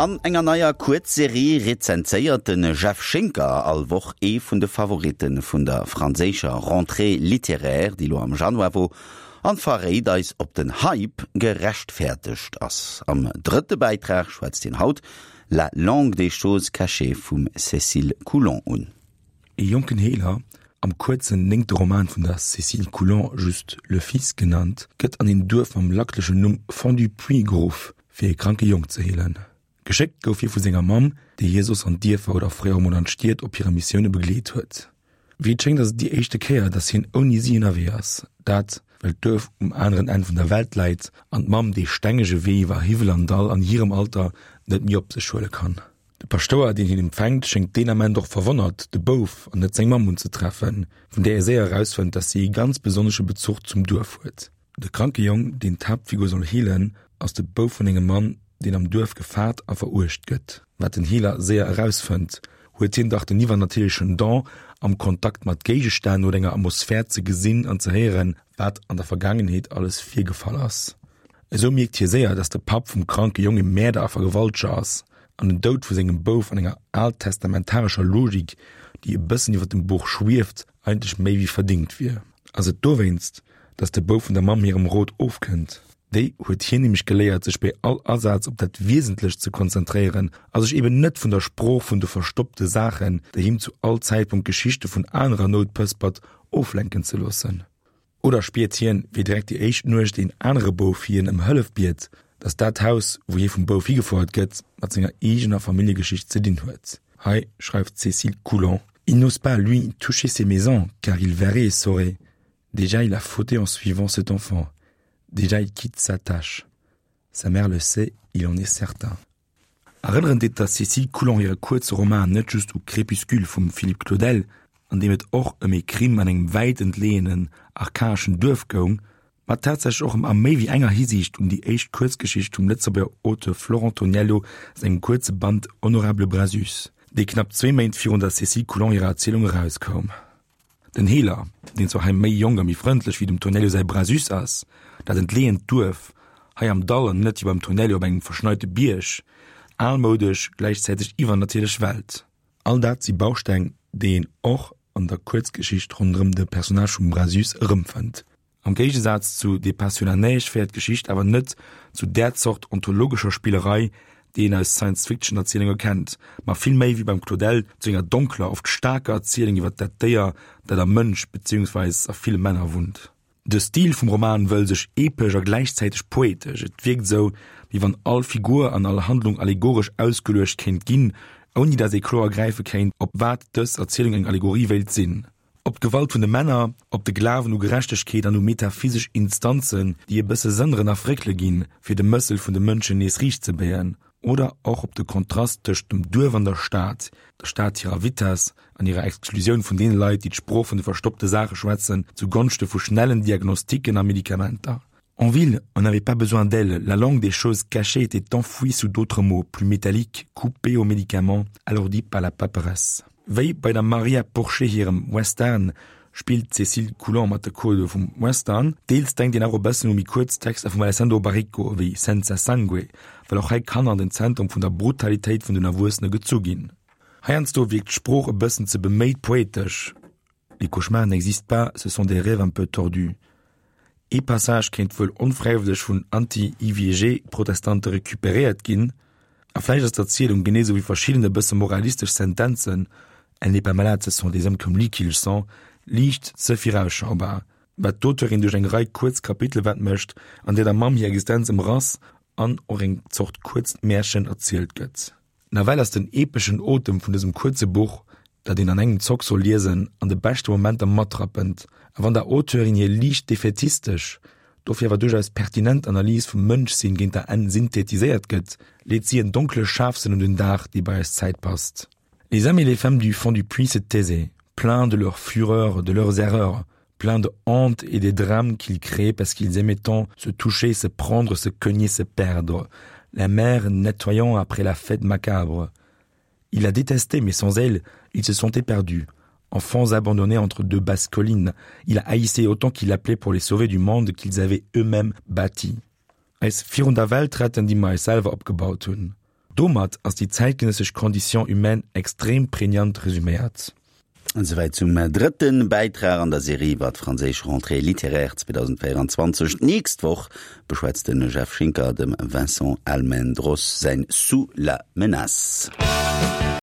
An enger neier Kuerzserie rezenséiert de Jeff Schinker all Woch ee vun de Favoritte vun der franséischer Rentrée littéraire, déi lo am Januar wor, an verréit eis, ob den Hype gerechtfäertegt ass. Am drëtte Bäitrag schwätzt hien haut La langue des choses cachées vum Cécile Coulon un. Ee jonken Heeler, am kuerzen néngte Roman vun der Cécile Coulon just Le Fils genannt, gëtt an een Duerf mam lacklechen Numm Fond-du-Puits geruff, fir ee kranke Jong ze heelen. Geschéckt gouf hie vu senger Mamm, déi hie soss an d'Dierfer oder fréier emol an d'Stied op hire Missioune begleet huet. Wéi et schéngt ass et déi éischte Kéier, datt hien ouni si ënnerwee ass. Dat, well d'Duerf um aneren Enn vun der Welt läit an d'Mamm dee stengege Wee iwwer Hiwwel an Dall an hirem Alter net méi op sech huele kann. De Paschtouer, deen hien empfänkt, schéngt deen Ament och verwonnert, de Bouf an net seng Mamm unzetreffen, vun där e séier erausfënnt, datt si ee ganz besonnesche Bezuch zum Duerf huet. De kranke Jong, deen d'Haaptfigur soll heelen, ass de Bouf vun engem Mann, deen am Duerf gefaart a veruecht gëtt. Wat den Heeler séier erausfënnt, huet hien dach den iwwernatierlechen Don, am Kontakt mat Géigestänn oder enger Atmosphär ze gesinn an ze héieren, wat an der Vergaangenheet alles virgefall ass. Esou mierkt hie séier, dass de Papp vum kranke Jong e Mäerder a Vergewalteger ass an den Doud vu sengem Bouf an enger altestamentarescher Logik, déi e bëssen iwwer dem Buch schwieft, eigentlech méi wéi verdingt wier. Ass et dowéinst, dass de Bouf vun der Mamm hirem Rot ofkënnt? Déi huet hien nämlech geléiert, sech bei all Asaz op dat Wiesentlecht ze konzentréieren a sech eben net vun der Sprooch vun de verstoppte Saachen, déi him zu all Zäitpunkt Geschichte vun anerer Nout pëspert, oflenken ze loossen. Oder spiert hien, wéi direkt déi éischt Nuecht een anere Bouf hien ëm Hëllef biet, datt dat Haus, wou hie vum Bouf higefouert gëtt, mat senger eegener Familljegeschicht ze dinn huet? Hei schreift d'Cécile Coulon, Il n'ose pas, lui, toucher ces maisons, car il verrait et saurait. Déjà il a fauté en suivant cet enfant. Déjà il quitte sa tâche. Sa mère le sait, il en est certain. Erënneren deet der Cécile Coulon hire kuerze Roman net just u Crépuscule vum Philippe Claudel, an deem et och ëm ee Crime an engem wäit entleeënen, archaeschen Duerf goung, ma tatsächlech och a méi wéi enger Hisiicht un déi éischt Kuerzgeschicht vum Lëtzebuerger Auteur Florent Toniello sengem kuerze Band Honorable Brasus, dee knapp zwee Méint virun der Cécile Coulon hirer Erzielung erauskoum. Den Heeler, deen zwar hei méi jonk a méi frëndlech wéi dem Tonello säi Brasus ass, dat entleeënt Duerf, hei am Dall an net wéi beim Tonello op engem verschneite Bierg, almoudesch, gläichzäiteg iwwernatierlech Welt. All dat si Bausteng, déi een och an der Kuerzgeschicht ronderëm de Personnage vum Brasus erëmfënnt. Am Géigesaz zu Des pas sur la neige féiert d'Geschicht awer net zu där Zort ontologescher Spillerei, déi een aus Science-Fiction-Erzielunge kennt, ma vill méi, wéi beim Claudel, zu enger donkler, oft staarker Erzielung iwwer dat Déier, dat am Mënsch beziehungsweis a ville Männer wunnt. De Stil vum Roman wëll sech epesch a gläichzäiteg poetesch, et wierkt esou, wéi wann all Figur an all Handlung allegoresch ausgeluecht kéint ginn, ouni dat ee kloer gräife kéint, op wat dës Erzielung eng Allegorie wéilt sinn. Op d'Gewalt vun de Männer, op de Glawen u Gerechtegkeet an u metaphysesch Instanzen, déi e bësse sënneren a fréckele ginn, fir de Mëssel vun de Mënschen nees riicht ze béien, oder och op de Kontrast tëscht dem Duerf an der Stad, der Stad hirer Vitess an hirer Exklusioun vun deene Leit, déi d'Sprooch vun de verstoppte Saache schwätzen, zu Gonschte vu schnellen Diagnostiken a Medikamenter. En ville, on n'avait pas besoin d'elle, la langue des choses cachées était enfouie sous d'autres mots, plus métalliques, coupés aux médicaments, alourdis par la paperasse. Wéi bei der Maria Porchet hirem Western spillt d'Cécile Coulon mat de Codë vum Western. Deels denkt een awer e bëssen u méi kuerz Texter vum Alessandro Baricco ewéi Senza Sangue, well och hei Kanner an den Zentrum vun der Brutalitéit vun den Erwuessene gezu ginn. Heiansdo wierkt d'Sprooch e bëssen ze beméit poetesch, Les cauchemars n'existent pas, ce sont des rêves un peu tordus. Ee Passage kéint wuel onfräiwëlleg vun Anti-IVG-Protestante recuperéiert ginn, a vläicht ass d'Erzielung, genee sou wéi verschidden e bësse moralistesch Sentenzen, Elle n'est pas malade, ce sont des hommes comme lui qui le sont, liicht ze virausschaubar, wat d'Auteurin duerch eng Rei kuerz Kapitele wett mécht, an där der Mamm hir Existenz ëmrass an och eng Zort kuerzt Märchen erzielt gëtt. Nawell ass den epeschen Otem vun dësem kuerze Buch, dat een an engem Zock soll liesen, an de beschte Momenter matrappend. A wann der Auteurin hir liicht defätistesch, dofir awer duerchaus pertinent Analys vum Mënschsinn géint der Enn synthetiséiert gëtt, leet si en donkle Scharfsënn un den Dag, dee bei eis Zäit passt. Les hommes et les femmes du fond du puits se taisaient, pleins de leur fureur, de leurs erreurs, pleins de honte et des drames qu'ils créaient parce qu'ils aimaient tant se toucher, se prendre, se cogner, se perdre, la mer nettoyant après la fête macabre. Il la détestait, mais sans elle, il se sentait perdu. Enfants abandonnés entre deux basses collines, il a haïssé autant qu'il appelait pour les sauver du monde qu'ils avaient eux-mêmes bâti. Eis virun der Welt retten, déi mer eis selwer opgebaut hunn. Domat ass déi zäitgenëssesch Condition humaine extrem prägnant resuméiert. Esouwäit zum drëtte Bäitrag an der Serie iwwer d'franséisch Rentrée littéraire 2024. D'nächst Woch beschwätzt de Jeff Schinker dem Vincent Almendros säin Sous la menace.